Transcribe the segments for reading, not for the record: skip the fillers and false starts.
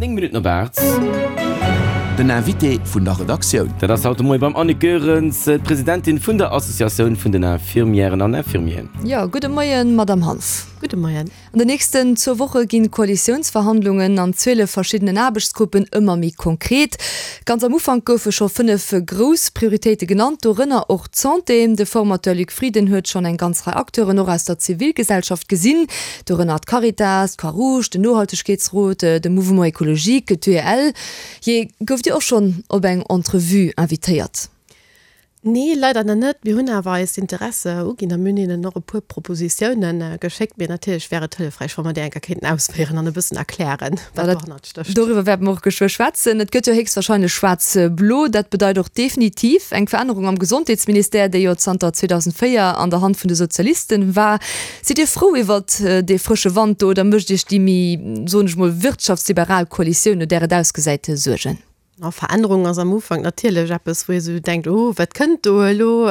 9 Minutten op 8. Den Invité vun der Redaktioun. Dat ass haut de Moie beim Annick Goerens, d'Presidentin vun der Associatioun vun den Infirmièren an Infirmieren. Jo, gudde Moien, Madamm Hanff. Gudde Moien. An den nächsten zwou Woche ginn d'Koalitiounsverhandlungen an 12 verschiddenen Aarbechtsgruppen ëmmer méi konkret. Ganz am Ufank goufe scho 5 grouss Prioritéite genannt, dorënner och d'Santé. De Formateur Luc Frieden huet schonn eng ganz Rei Acteuren och aus der Zivilgesellschaft gesinn, dorënner d'Caritas, d'Croix-Rouge, den Nohaltegkeetsrot, de Mouvement Ecologique, d'UEL. Jee, gouft Dir och schonn op eng Entrevue invitéiert? Nee, leider nach net. Mir hunn awer eis Interesse uginn a mir hunn hinnen och e puer Propositiounen geschéckt. Mee natierlech wär et hëllefräich, wa mer déi eng Kéier kéinten ausféieren an e bëssen erklären, wat dohannert stécht. Doriwwer wäerte mer och geschwë schwätzen. Et gëtt jo héchstwahrscheinlech schwaarz-blo. Dat bedeit och definitiv eng Verännerung am Gesondheetsministère, dee jo zanter 2004 an der Hand vun de Sozialisten war. Sidd Dir frou iwwert dee frësche Wand do oder mécht Iech déi méi, soen ech mol, wirtschaftsliberal Koalitioun, no där et ausgesäit, Suergen? A Verännerung ass am Ufank natierlech eppes, wou ee sou denkt, Oh, wat kënnt do elo?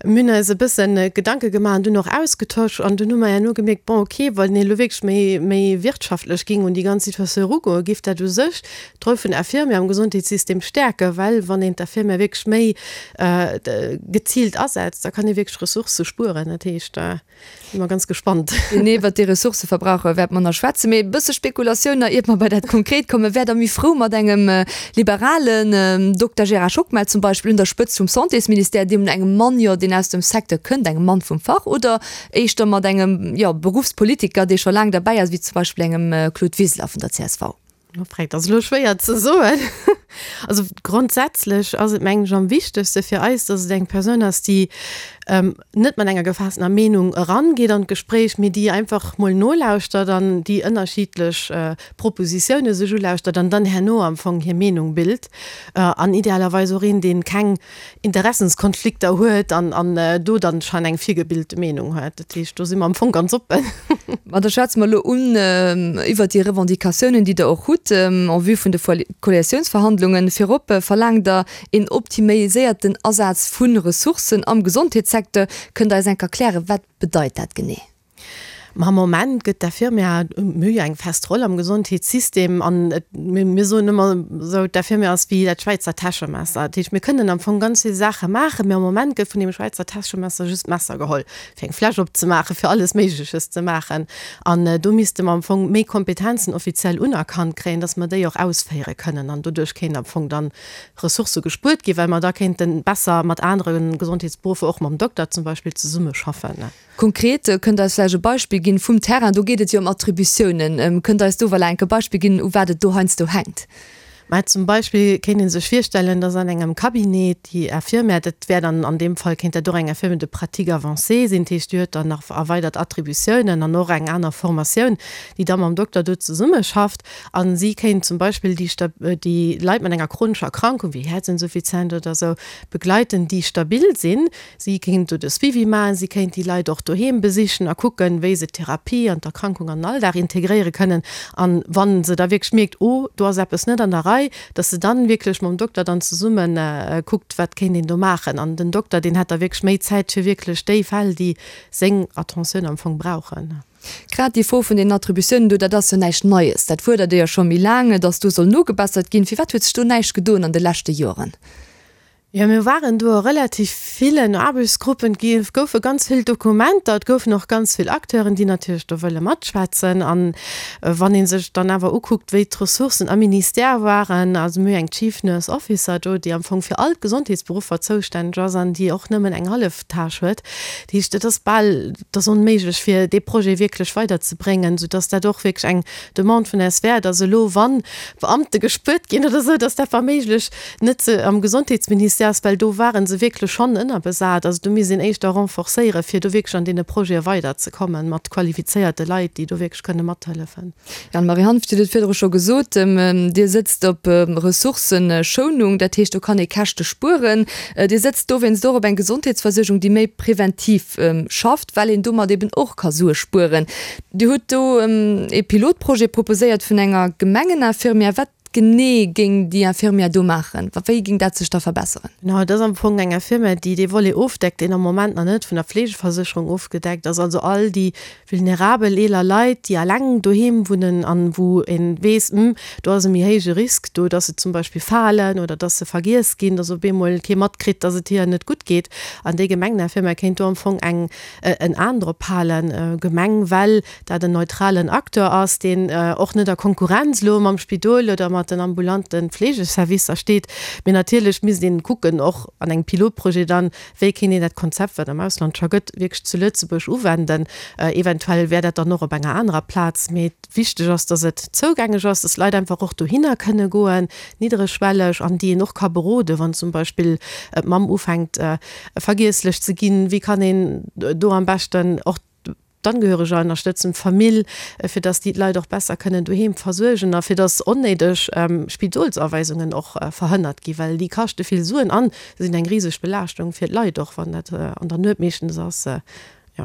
Mir hunn eis e bësse Gedanke gemaach an dunn och ausgetosch an dunn hu mer herno gemierkt, Bon, okay, wann een elo wierklech méi, méi wirtschaftlech géing un déi ganz Situatioun erugoen, géif dat u sech d'Roll vun der Infirmière am Gesondheetssystem stäerken, well wann een d'Infirmière wierklech méi geziilt asetzt, da kann ee wierklech Ressourcë spueren. Dat heescht. Si mer ganz gespannt. Genee iwwert déi Ressourcëverbraucher wäerte mer nach schwätzen. Mee e bësse Spekulatioun nach, iert mer bei dat Konkret kommen. Wäert Der méi frou mat engem liberalen Dokter Gérard Schockmel zum Beispill un der Spëtzt vum Santésministère, deem engem Mann, jo, deen aus dem Secteur kënnt, engem Mann vum Fach, oder éischter mat engem, jo, Beruffspolitiker, dee scho laang derbäi ass, wéi zum Beispill engem Claude Wiseler vun der csv? Dat ass elo schwéier ze soen. Also grondsätzlech ass et, mengen ech, am wichtegste fir eis, datt et eng Persoun ass, déi net mat enger gefaasstener Meenung erangeet an d'Gespréich, mee déi einfach mol nolauschtert an déi ënnerschiddlech Propositioune sech ulauschtert an dann herno am Fong hir Meenung bilt. An idealerweis och een, dee keng Interessenskonflikter huet an an do dann schon eng virgebilte Meenung huet. Dat heescht, do si mer am Fong ganz oppen. Ma da schwätze mer elo un iwwert déi Revendicatiounen, déi Der och hutt en vue vun de Koalitiounsverhandlungen. Virop verlaangt Der een optimiséierten Asaz vu Ressourcen am Gesondheetssecteur. Kënnt Der eis enk erklären, wat bedeit dat genee? Ma am Moment gëtt d'Infirmière, mir hu jo eng fest Roll am Gesondheetssystem an et, mir soen ëmmer esou, d'Infirmière ass wéi dat Schwäizer Täschemesser. Dat heescht, mir kënnen am Fong ganz vill Saache maachen, mee am Moment gëtt vun deem Schwäizer Täschemesser just d'Messer geholl, fir eng Fläsch opzemaachen, fir alles Méigleches ze maachen. An do misste mer am Fong méi Kompetenzen offiziell unerkannt kréien, dass mer déi och ausféiere kënnen an doduerch kéint am Fong dann Ressourcë gespuert ginn, well mer da kéinte besser mat anere Gesondheetsberuffer, och mam Dokter zum Beispill, zesummeschaffen. Konkret, kënnt Der eis vläicht e Beispill ginn vum Terrain? Do geet et jo ëm Attributiounen. Kënnt Der eis do voilà enk e Beispill ginn, u wat et do heiansdo hänkt? Mä zum Beispill kéint ee sech virstellen, dass an engem Cabinet déi Infirmière, dat wär dann an deem Fall kéint dat och eng Infirmière de pratique avancée sinn, dat heescht déi huet dann nach erweidert Attributiounen an och eng aner Formatioun, déi da mam Dokter do zesummeschafft a si kéint zum Beispill déi déi Leit mat enger chronescher Erkrankung wéi Häerzinsuffizienz oder esou begleiten, déi stabil sinn, Si kéint do de Suivi maachen, si kéint déi Leit och doheem besichen a kucken, wéi se d'Therapie an d'Erkrankung an den Alldag integréiere kënnen. An wa se da wierklech mierkt, oh, do ass eppes net an der Rei, dass se dann wierklech mam Dokter dann zesumme kuckt, wat kéint een do maachen. An den Dokter, deen hätt da wierklech méi Zäit fir wierklech déi Fäll, déi seng Attentioun am Fong brauchen. Grad déi Fro vun den Attributiounen do, dat ass jo näischt Neies. Dat fuerdert Dir jo scho méi laang, dass do soll nogebessert ginn. Firwat huet sech do näischt gedoen an de leschte Joren? Jo, mir waren do a relativ villen Aarbechtsgruppen. Et goufe ganz vill Dokumenter, et goufen och ganz vill Acteuren, déi natierlech do wëlle matschwätzen. An wann ee sech dann awer ukuckt, wéi d'Ressourcen am Ministère waren, also mir hu eng Chief Nurse Officer do, déi am Fong fir all d'Gesondheetsberuffer zoustänneg ass an déi och nëmmen eng hallef Tâche huet. Dat heescht, et ass bal, et ass onméiglech, fir dee Projet wierklech weiderzebréngen, soudass dat och wierklech eng Demande vun eis wär, dass elo, wann Beamte gespuert ginn oder esou, dass dat wa méiglech net se am Gesondheetsministère ass, well do ware se wierklech schonn ënnerbesat. Also do misst een éischter renforcéieren, fir do wierklech an deene Projete weiderzekommen, mat qualifizéierte Leit, déi do wierklech kënne mathëllefen. Anne-Marie Hanff, Dir hutt et virdru scho gesot, Dir sëtzt op Ressourcëschounung, dat heescht, do kann ee Käschte spueren. Dir sëtzt dowéinst och op eng Gesondheetsversuergung, déi méi preventiv schafft, well een domat eben och ka Sue spueren. Dir hutt do ee Pilotprojet proposéiert vun enger Gemengeninfirmière. Wat. genee géing déi Infirmière do maachen? Wéi géing dat sech da verbesseren? Genau, et ass am Fong eng Infirmière, déi dee Volet ofdeckt, deen am Moment nach net vun der Fleegeversécherung ofgedeckt ass, also all déi vulnerabel eeler Leit, déi eleng doheem wunnen an wou ee weess, hm, do ass e méi héije Risk do, dass se zum Beispill falen oder dass se vergiess ginn, dass op eemol kee matkritt, dass et hiren net gutt geet. An déi Gemengeninfirmière kéint do am Fong eng en Aen drop halen. Gemeng, well dat en neutralen Acteur ass, deen och net a Konkurrenz elo mam Spidol oder mat den ambulante Fleegeservicer steet. Mee natierlech misst een kucken, och an engem Pilotprojet dann, wéi kéint een dat Konzept, wat am Ausland scho gëtt, wierklech zu Lëtzebuerg uwenden. Eventuell wär dat dann och op enger anerer Plaz. Mee wichteg ass, dass et zougänglech ass, dass d'Leit einfach och dohinner kënne goen, niddregschwelleg, an déi een och ka beroden, wann zum Beispill d'Mamm ufänkt vergiesslech ze ginn, wéi kann een do am beschten och d'Angehöreger ënnerstëtzen, d'Famill, fir dass déi d'Leit och besser kënnen doheem versuergen a fir dass onnéideg Spidolsaweisungen och verhënnert ginn, well déi kaschte vill Suen an sinn eng riseg Belaaschtung fir d'Leit och, wann dat an der Nuet meeschtens ass. Jo.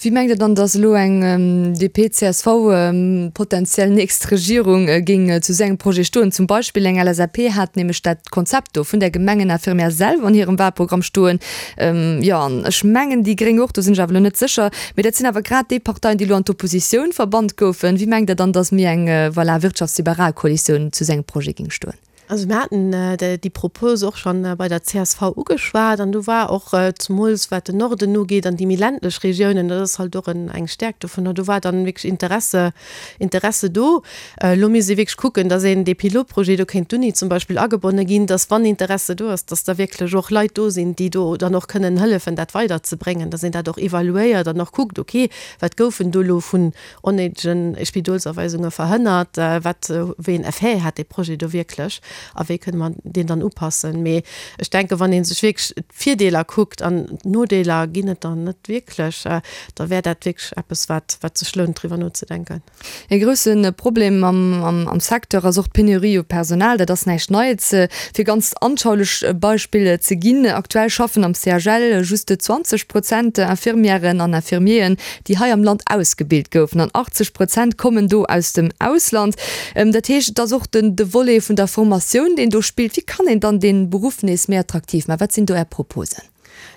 Wéi mengt Der dann, dass elo eng DP-CSV potenziell nächst Regierung géing zu esou engem Projet stoen? Zum Beispill eng LSAP hat nämlech dat Konzept do vun der Gemengeninfirmière selwer an hirem Wahlprogramm stoen. Jo, an ech mengen déi Gréng och, do sinn ech awer elo net sécher. Mee dat sinn awer grad déi Parteien, déi elo an d'Oppositioun verbannt goufen. Wéi mengt Der dann, dass méi eng, voilà, wirtschaftsliberal Koalitioun zu esou engem Projet géing stoen? Also mir haten déi Propos och scho bei der csv ugeschwat an do war och, zemools wat den Norden ugeet an déi méi ländlech Regiounen, dat ass halt och eng Stärkt dovunner, do war dann wierklech Interesse, Interesse do. Elo misst ee wierklech kucken, datt een dee Pilotprojet, do kéint d'Uni zum Beispill agebonne ginn, datt wann Interesse do ass, datt da wierklech och Leit do sinn, déi do dann och kënnen hëllefen dat weiderzebréngen, datt een dat och evaluéiert an och kuckt, okay, wat goufen do elo vun onnéidegen Spidolsaweisunge verhënnert? Wat, wéi en Effet hat dee Projet do wierklech a wéi kënne mer deen dann upassen? Mee ech denken, wann ee sech wierklech d'Virdeeler kuckt an d'Nodeeler ginn et der net wierklech, da wär dat wierklech eppes, wat, wat sech lount driwwer nozedenken. E grousse Problem am Secteur ass och d'Penurie u Personal. Dat ass näischt Neits. Fir ganz anschaulech Beispill ze ginn, Aktuell schaffen am CHL just 20 Prozent Infirmièren an Infirmieren, déi hei am Land ausgebilt goufen, an 80 Prozent kommen do aus dem Ausland. Dat heescht, et ass och den de Volet vun der Formatioun, deen do spillt. Wéi kann een dann dee Beruff nees méi attraktiv maachen? Wat sinn do Är Proposen?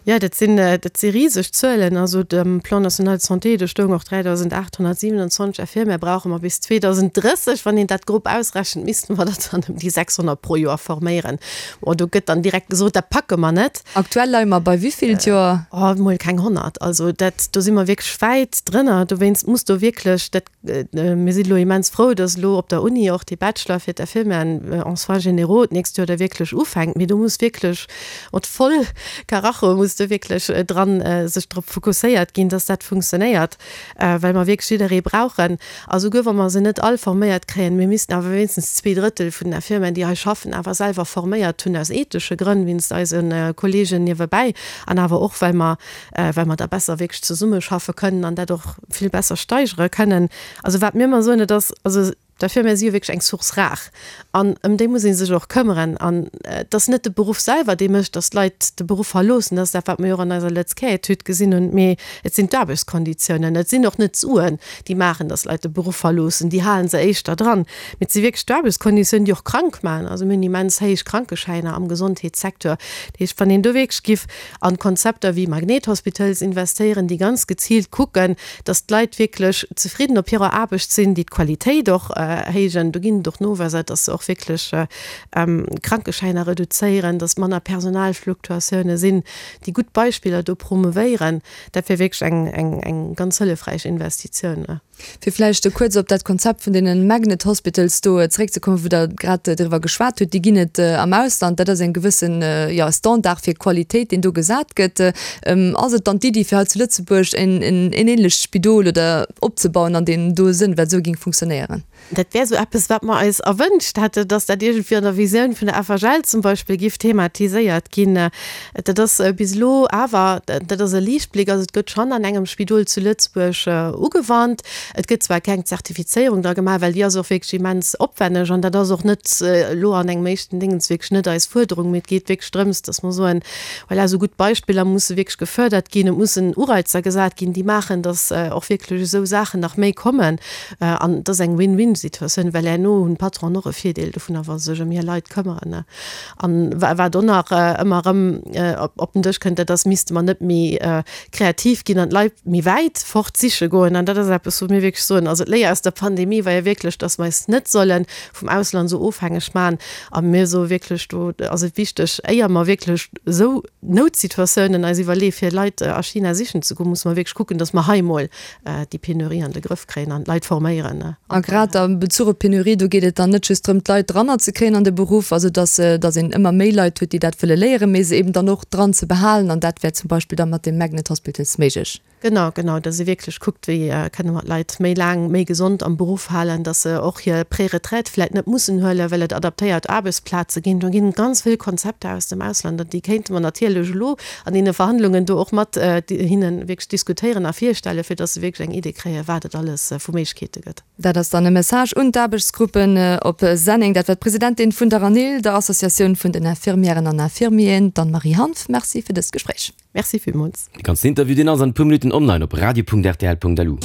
Jo, dat sinn, dat si riseg Zuelen. Also dem Plan national de santé, do stoung och 3.827 Infirmière brauche mer bis 2030. Wann een dat grob ausrechent, misste mer der dann ëm déi 600 pro Joer forméieren. Bon, do gëtt dann direkt gesot, dat packe mer net. Aktuell leie mer bei wéivill d'Joer? Oh, mol keng 100. Also dat, do si mer wierklech wäit drënner. Dowéinst muss do wierklech dat, mir sinn elo immens frou, datt elo op der Uni och dee Bachelor fir d'Infirmièren en soins généraux d'nächst Joer da wierklech ufänkt. Mee do muss wierklech mat voll Karacho muss do wierklech dran sech drop fokusséiert ginn, datt dat funktionéiert, well mer wierklech jidderee brauchen. A souguer wa mer se net all forméiert kréien, mir missten awer wéinstens zweedrëttel vun den Infirmieren, déi hei schaffen, awer selwer forméiert hunn, aus ethesche Grënn, wéinst eise Kollegen niewebäi an awer och, well mer, well mer da besser wierklech zesummeschaffe kënnen an dat och vill besser steigere kënnen. Also wat mir ëmmer soen, et ass, also d'Infirmière si jo wierklech eng Source rare an ëm déi muss ee sech och këmmeren. An et ass net de Beruff selwer, dee mécht, datt d'Leit de Beruff verloossen, dat ass dat, wat mer jo och an eiser Lëtz-Care-Etüd gesinn hunn, mee et sinn d'Aarbechtskonditiounen, et sinn och net d'Suen, déi maachen, datt Leit de Beruff verloossen, déi hale se éischter dran, mee et si wierklech d'Aarbechtskonditiounen, déi och krank maachen. Also mir hunn immens héich Krankeschäiner am Gesondheetssecteur. Dat heescht, wann een do wierklech giff an Konzepter wéi Magnethospitals investéieren, déi ganz geziilt kucken, datt d'Leit wierklech zefridden op hirer Aarbecht sinn, déi d'Qualitéit och héijen, do ginn et och Noweiser, datt se och wierklech Krankeschäiner reduzéieren, datt manner Personalfluktuatioune sinn, déi gutt Beispiller do promouvéieren, dat wär wierklech eng, eng ganz hëllefräich Investitioun. Fir vläicht kuerz op dat Konzept vun deene Magnet Hospitals do zeréckzekommen, wou Der grad driwwer geschwat hutt, déi ginn et am Ausland. Dat ass eng gewëssen, jo, Standard fir Qualitéit, deen do gesat gëtt. Ass et dann d'Iddi, fir hei zu Lëtzebuerg en ähnlecht Spidol oder opzebauen an deem do Sënn, wat esou géing funktionéieren? Dat wär esou eppes, wat mer eis erwënscht hätten, dass dat iergendwéi an der Visioun vun der FHL zum Beispill giff thematiséiert ginn. Dat ass bis elo awer, dat ass e Liichtbléck, also et gëtt schonn an engem Spidol zu Lëtzebuerg ugewannt. Et gëtt zwar keng Zertifizéierung dra gemaach, well déi ass och wierklech immens opwenneg an dat ass och net elo an engem éischten Dingens wierklech net eis Fuerderung, mee et geet wierklech drëms, dass mer soen, voilà, esou gutt Beispiller musse wierklech gefördert ginn, et mussen Ureizer gesat ginn, déi maachen, dass och wierklech esou Saachen nach méi kommen. An et ass eng Win-win-. Win-Win-Situatioun, well herno hunn d'Patronen och e Virdeel dovunner, wa se sech ëm hir Leit këmmeren. An wat och nach ëmmer erëm op den Dësch kënnt, dat ass, misste mer net méi kreativ ginn an d'Leit méi wäit fort siche goen. An dat ass eppes, wou mir wierklech soen, also d'Léier aus der Pandemie war jo wierklech, dass mer eis net solle vum Ausland esou ofhängeg maachen. A mir soe wierklech, do ass et wichteg, éier mer wierklech esou Noutsituatiounen eis iwwerleeë fir Leit a China sichen ze goen, musse mer wierklech kucken, dass mer hei emol déi Penurie an de Grëff kréien an d'Leit forméieren. A grad am Bezuch op d'Penurie, do geet et dann net just drëm, d'Leit dranner ze kréien an de Beruff, also dass, dass een ëmmer méi Leit huet, déi dat wëlle léieren, mee se eben dann och dran ze behalen. An dat wär zum Beispill da mat dem Magnet Hospitals méiglech. Genau, genau, dass ee wierklech kuckt, wéi kënne mer d'Leit méi laang, méi gesond am Beruff halen, dass se och hir Préretraite vläicht net mussen huelen, well et adaptéiert Aarbechtsplaze ginn. Do ginn et ganz vill Konzepter aus dem Ausland an déi kéinte mer natierlech elo an deene Verhandlungen do och mat hinne wierklech diskutéieren a virstellen, fir dass se wierklech eng Idee kréien, wat et alles vu Méiglechkeete gëtt. Dat ass dann e Message un d'Aarbechtsgruppen op Senneng. Dat war d'Presidentin vun der ANIL, der Associatioun vun den Infirmièren an Infirmieren, d'Anne-Marie Hanff. Merci fir dëst Gespréich. Merci villmools. De ganzen Interview, deen ass an e puer Minutten online op radio.rtl.lu.